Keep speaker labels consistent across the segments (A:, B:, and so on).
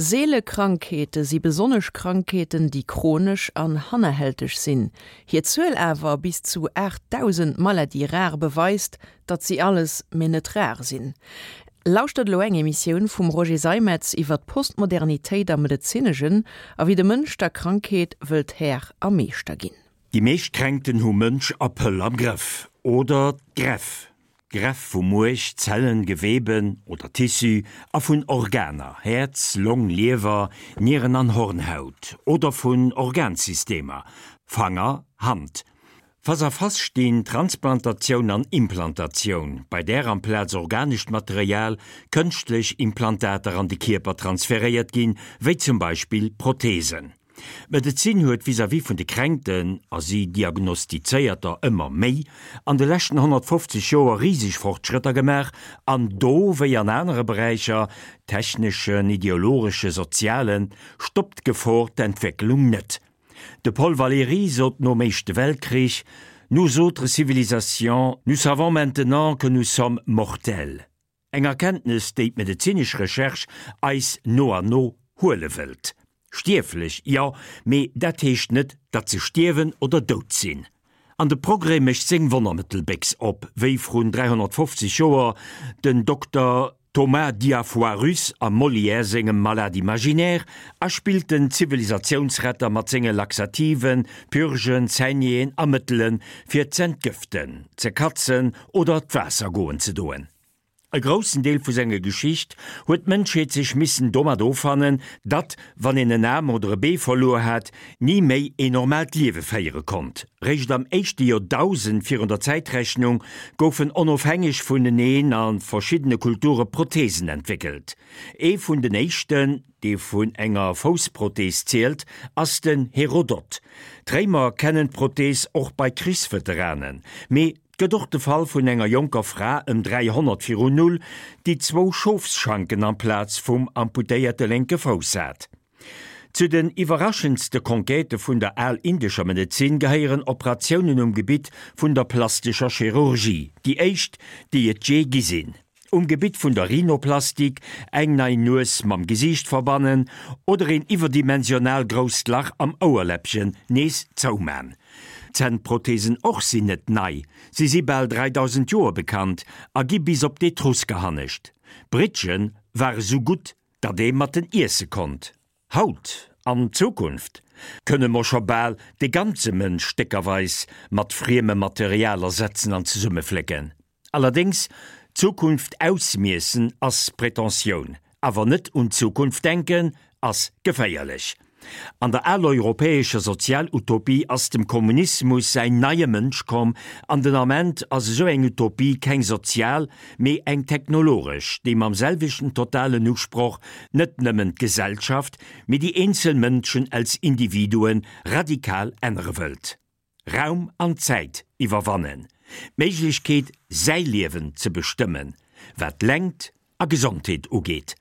A: Seele Krankheete si besonnesch Krankheeten, déi chronesch an hannerhälteg sinn. Hir Zuel awer, bis zu 8.000 Maladies rares, beweist, datt si alles, mee net rar sinn. Lauschtert elo eng Emissioun vum Roger Seimetz iwwer d'Postmodernitéit am Medezineschen a wéi de Mënsch der Krankheet wëllt Här a Meeschter ginn.
B: Déi meescht Kränkten hu Mënsch a Pëll am Grëff. Oder d'Gräff. D'Gräff vu Muerch, Zellen, Geweben oder Tissu a vun Organer, Häerz, Long, Liewer, Nieren an Hornhaut, oder vun Organsystemer, Fanger, Hand. Face à face stinn Transplantatioun an Implantatioun, bei där amplaz organescht Material kënschtlech Implantater an de Kierper transferéiert ginn, wéi zum Beispill Protheesen. D'Medezin huet vis-à-vis vun de Kränkten, a si diagnostizéiert der ëmmer méi, an de leschten 150 Joer riseg Fortschrëtter gemaach, an do wéi an anere Beräicher, techneschen, ideologesche, sozialen, stoppt d'Gefor d'Entwécklung net. De Paul Valéry sot nom Éischte Weltkrich, Nous autres civilisations, nous savons maintenant que nous sommes mortels. Eng Erkenntnes, déi d'medezinesch Recherche eis no an no huele wëllt. Stierflech, jo, mee dat heescht net, datt se stierwen oder dout sinn. An de Progrès mécht seng Wonnermëttelbéchs op, wéi vrun 350 Joer den Dokter Thomas Diafoirus am Molière sengem Malade imaginaire, a spillt den Zivilisatiounsretter mat senge Laxativen, Purgen, Saignéeën a Mëttele fir z'entgëften, ze katzen oder d'Waasser goen ze doen. E groussen Deel vu senger Geschicht huet d'Mënschheet sech missen domat offannen, datt, wann een en Aarm oder e Bee verluer hat, ni méi een normaalt Liewe féiere konnt. Réischt am éischte Joerdausend virun der Zäitrechnung goufen onofhängeg vuneneen a verschiddene Kulture Protheesen entwéckelt. Ee vun den éischten, dee vun enger Foussprothees zielt, ass den Herodot. D'Réimer kennen d'Prothees och bei Krichsveteranen, mee 't gëtt och de Fall vun enger jonker Fra ëm 300 virun Null, déi zwou Schofsschanken amplaz vum amputéierte lénke Fouss hat. Zu den iwwerraschendste Conquêtë vun der al-indescher Medezin gehéieren Operatiounen um Gebitt vun der plastescher Chirurgie, déi éischt, déi et jee gi sinn. Um Gebitt vun der Rhinoplastik, eng nei Nues mam Gesiicht verbannen oder een iwwerdimensional grousst Lach am Ouerläppchen nees zouman. Zännprothesen och sinn net nei, si si bal 3000 Joer bekannt a gi bis op d'Etrusker hannescht. Brittgen ware sou gutt, datt ee mat en iesse konnt. Haut, an Zukunft, kënne mer scho bal de ganze Mënsch stéckerweis mat friemem Material ersetzen an zesummeflécken. Allerdéngs, d'Zukunft ausmiessen ass Pretentioun, awer net un d'Zukunft denken ass geféierlech. An der aleuropäescher Sozialutopie ass dem Kommunismus säin neie Mënsch komm, an den Ament ass esou eng Utopie keng sozial, mee eng technologesch, déi mam selwechten totalen Usproch net nëmmen d'Gesellschaft, mee déi eenzel Mënschen als Individuen radikal ännere wëllt. Raum an Zäit iwwerwannen, d'Méiglechkeet säi Liewen ze bestëmmen, wat Längt a Gesondheet ugeet.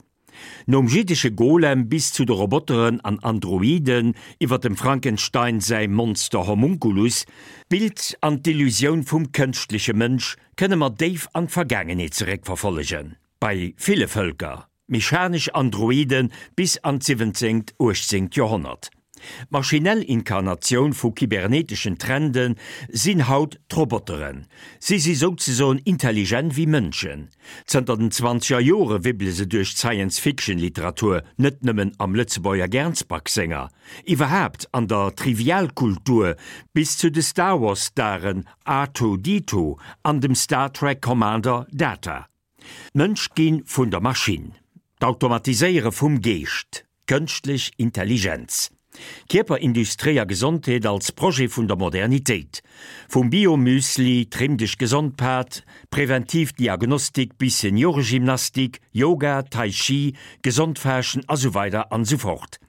B: Nom jiddesche Golem bis zu de Roboteren an Androiden, iwwer dem Frankenstein säi Monster Homunculus, d'Bild an d'Illusioun vum kënschtleche Mënsch kënne mer déif an d'Vergaangenheet zeréckverfollegen, bei ville Vëlker. Mechanesch Androide bis an d'siwwenzéngt, uechtzéngt Joerhonnert. D'maschinell Inkarnatioun vu kyberneteschen Trende sinn haut d'Roboteren. Si si souzesoen intelligent wéi Mënschen. Zënter den zwanzeger Jore wibbele se duerch d'Science-Fiction-Literatur, net nëmmen am Lëtzebuerger Gernsback senger, iwwerhaapt an der Trivialkultur, bis zu de Star Wars-Staren Artoo-Ditoo an dem Star Trek Commander Data. D'Mënsch gi vun der Maschinn, d'Automatiséiere vum Geescht, d'kënschtlech Intelligenz, Kierperindustrie a Gesondheet als Projet vun der Modernitéit, vum Bio-Müsli, Trimm dech gesond Pad, präventiv Diagnostik bis Senioregymnastik, Yoga, Tai Chi, gesond Faaschten a sou weider an sou fort.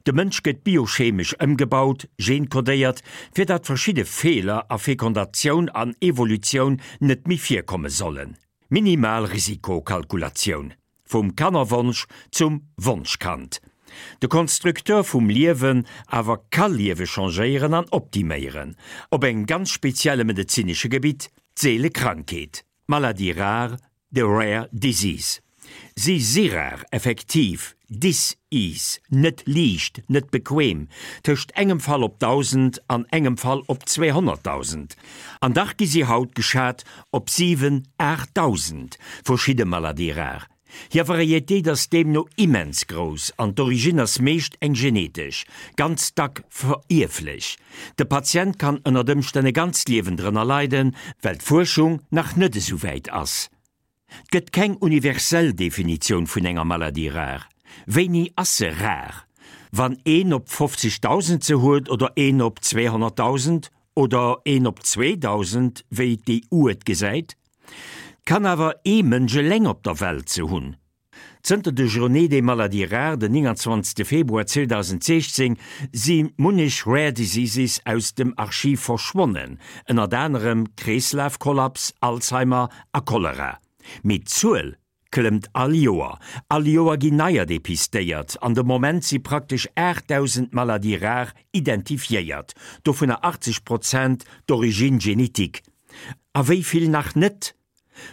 B: De Mënsch gëtt biochemesch ëmgebaut, genkodéiert, fir datt verschidde Feeler a Fekondatioun an Evolutioun net méi virkomme sollen. Minimal Risikokalkulatioun, vum Kannerwonsch zum Wonschkand. De Konstrukteur vum Liewen awer ka Liewe changéieren an optiméieren, op engem ganz spezielle medezinesche Gebitt, d'seele Krankheet, d'Maladie rare, de rare disease. Si si rar, effektiv. Dis-ease, net liicht, net bequem, tëscht engem Fall op 1.000 an engem Fall op 200.000. An dach gi si haut geschat op 7, 8.000 verschidde Maladies rares. Hir Varietéit ass deemno immens grouss an d'Origine ass meescht eng genetesch, ganz dack verierflech. De Patient kann ënnert Ëmstänn e ganzt Liewen drënner leiden, well d'Fuerschung nach net esou wäit ass. 't gëtt keng universell Definitioun vun enger Maladie rare. Wéini ass se rar? Wann een op 50.000 se huet oder een op 200.000 oder een op 2.000, wéi d'EU et gesäit? 't kann awer ee Mënsch eleng op der Welt se hunn. Zënter de Journée des maladies rares den 29 Februar 2016 si munnech Rare Diseases aus dem Archiv verschwonnen, ënnert anerem Kreeslafkollaps, Alzheimer a Cholera. Mee d'Zuel klëmmt all Joer. All Joer ginn neier depistéiert an de Moment si praktesch 8.000 Maladies rares identifiéiert, dovunner 80 Prozent d'origine génétique. A wéi vill nach net?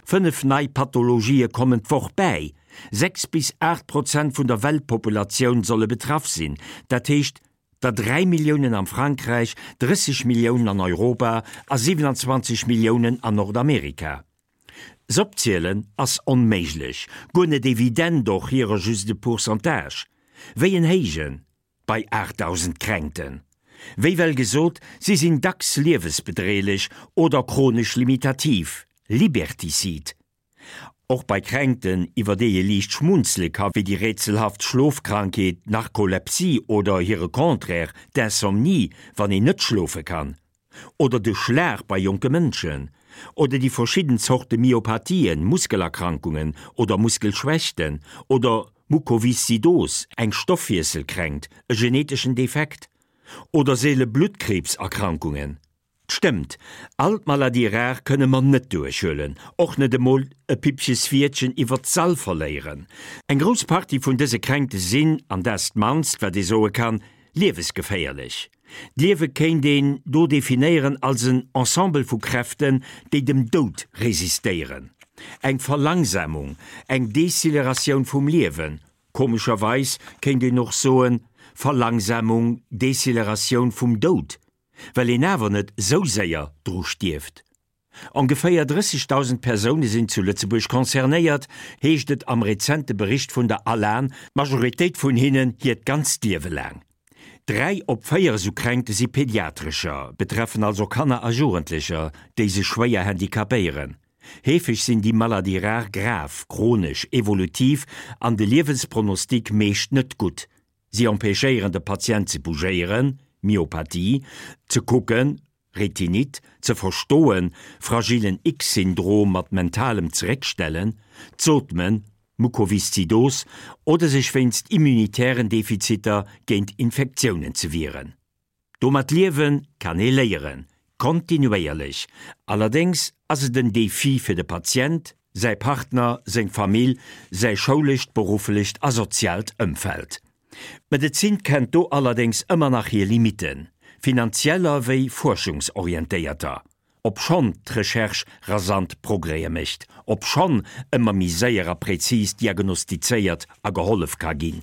B: 5 nei Pathologië kommen d'Woch bäi. 6 bis 8 Prozent vun der Weltpopulatioun solle betraff sinn, dat heescht der 3 Milliounen am Frankräich, 30 Milliounen an Europa a 27 Milliounen an Nordamerika. S'opzielen ass onméiglech, guer net evident, och hirer just e Pourcentage. Wéi en héijen bei 8.000 Kränkten. Wéi well gesot, si sinn dacks liewesbedreelech oder chronesch limitativ, liberticide. Och bei Kränkten, iwwer déi ee liicht schmunzele ka wéi déi rätselhaft Schlofkrankheet Narkolepsie oder hire Contraire, d'Insomnie, wann een net schlofe kann. Oder de Schlag bei jonke Mënschen. Oder déi verschidden Zorte Myopathien, Muskelerkrankungen oder Muskelschwächten. Oder Mukoviszidos, eng Stoffwiesselkränkt, e geneteschen Defekt. Oder seele Bluttkriibserkrankungen. 't stëmmt, all d'Maladies rares kënne mer net duerchhuelen, och net emol e Pippches Wiertchen iwwert d'Sall verléieren. Eng grouss Partie vun dëse Kränkte sinn, an dat ass d'mannst wat ee soe kann, liewesgeféierlech. D'Liewe kéint een do definéieren als en Ensemble vu Kräften, déi dem Doud resistéieren. Eng Verlangsamung, eng Deceleratioun vum Liewen, komescherweis kéint een och soen, Verlangsamung, Deceleratioun vum Doud, well een awer net sou séier dru stierft. Ongeféier 30.000 Persoune sinn zu Lëtzebuerg concernéiert, heescht et am rezente Bericht vun der ALAN, d'Majoritéit vun hinnen hiert ganzt Liewe laang. 3 op 4 esou Kränkte si pediatrescher, betreffen also Kanner a Jugendlecher, déi sech schwéier handicapéieren. Heefeg sinn déi Maladies rares grav, chronesch, evolutiv an de Liewenspronostic meescht net gutt. Si empêchéieren de Patient ze bougéieren, Myopathie, ze kucken, Retinite, ze verstoen, fragilen X-Syndrom mat mentalem Zeréckstellen, z'ootmen, Mukoviszidos, oder sech wéinst immunitären Defiziter géint Infektiounen ze wieren. Domat liewe kann ee léieren, kontinuéierlech. Allerdéngs ass et en Defi fir de Patient, säi Partner, seng Famill, säi schoulescht, berufflecht a soziaalt Ëmfeld. D'Medezin kennt do allerdéngs ëmmer nach hir Limitten, finanzieller wéi fuerschungsorientéierter. Obschonn d'Recherche rasant Progrèse mécht, obschonn ëmmer méi séier a präzis diagnostizéiert a gehollef ka ginn,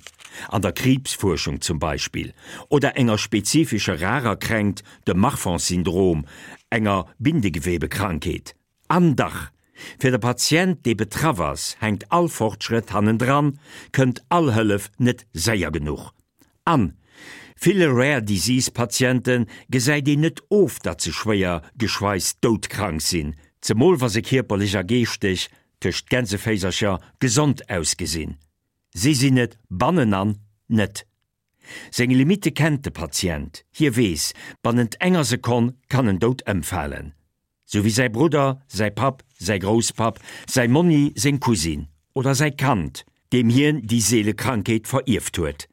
B: an der Kriibsfuerschung zum Beispill, oder enger spezifescher rarer Kränkt, dem Marfan-Syndrom, enger Bindegewebekrankheet. An dach, fir de Patient, dee betraff ass, hänkt all Fortschrëtt hannendran, kënnt all Hëllef net séier genuch. An ville Rare Disease Patiente gesäit een net of, datt se schwéier geschweis doudkrank sinn, zemol wa se kierperlech a geeschteg, tëscht Gänseféisercher, gesond ausgesinn. Si sinn et bannenan net. Seng Limitte kennt de Patient, hie weess, bannent enger Sekonn kann en dout ëmfalen. Sou wéi säi Brudder, säi Papp, säi Grousspapp, säi Monni, seng Cousine oder säi Kand, deem hien déi seele Krankheet verierft huet.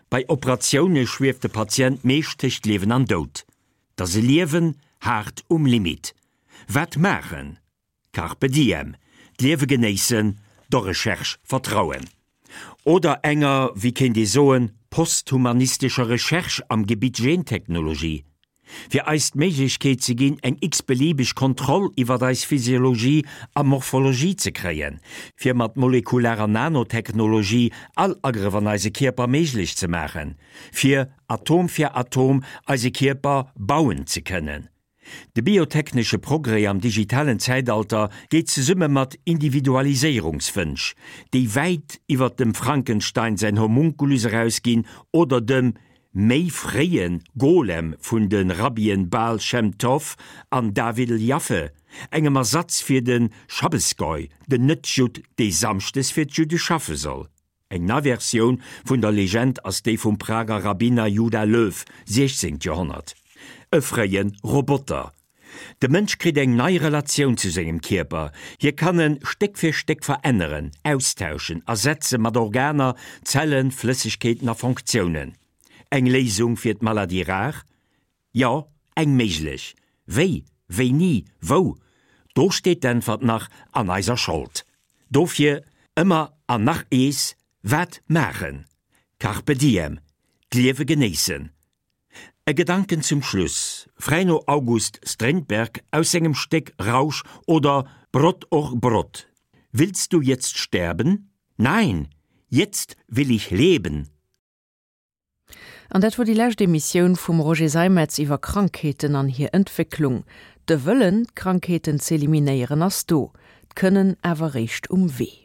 B: Bei Operatioune schwieft de Patient meescht tëscht Liewen an Doud. 't ass e Liewen haart um Limit. Wat maachen? Carpe diem, d'Liewe genéissen, der Recherche vertrauen. Oder enger, wéi kéint ee soen, posthumanistescher Recherche am Gebitt Gentechnologie. Fir eis d'Méiglechkeet ze ginn, eng x-beliebeg Kontroll iwwert eis Physiologie a Morphologie ze kréien, fir mat molekularer Nanotechnologie all Agrëff an eise Kierper méiglech ze maachen, fir Atom fir Atom eise Kierper bauen ze kënnen. De biotechnesche Progrès am digitalen Zäitalter geet zesumme mat Individualiséierungswënsch, déi wäit iwwert dem Frankenstein säin Homunculus erausginn oder dem méi fréie Golem vun de Rabbien Baal Shem Tov an Davidl Jaffe, engem Ersatz fir de Schabbesgoy, den Net-Judd, dee samschdes fir d'Judde schaffe soll. Eng nei Versioun vun der Legend ass déi vum Prager Rabbiner Judah Löw, 16. Joerhonnert. E fréie Roboter. De Mënsch kritt eng nei Relatioun zu sengem Kierper. Hie kann en Stéck fir Stéck veränneren, austauschen, ersetze mat Organer, Zellen, Flëssegkeeten a Fonctiounen. Eng Léisung fir d'Maladie rare? Jo, eng méiglech. Wéi, wéini, wou? Do steet d'Äntwert nach an eiser Schold. Dofir ëmmer an nach ees, Wat maachen? Carpe diem, d'Liewe genéissen. E Gedanken zum Schluss, fräi no August Strindberg aus sengem Stéck Rausch oder Brot och Brot, Willst du jetzt sterben? Nein, jetzt will ich leben!
A: An dat wor déi lescht Emissioun vum Roger Seimetz iwwer Krankheeten an hir Entwécklung. De Wëllen, d'Krankheeten z'eliminéieren, ass do, d'Kënnen awer réischt um Wee.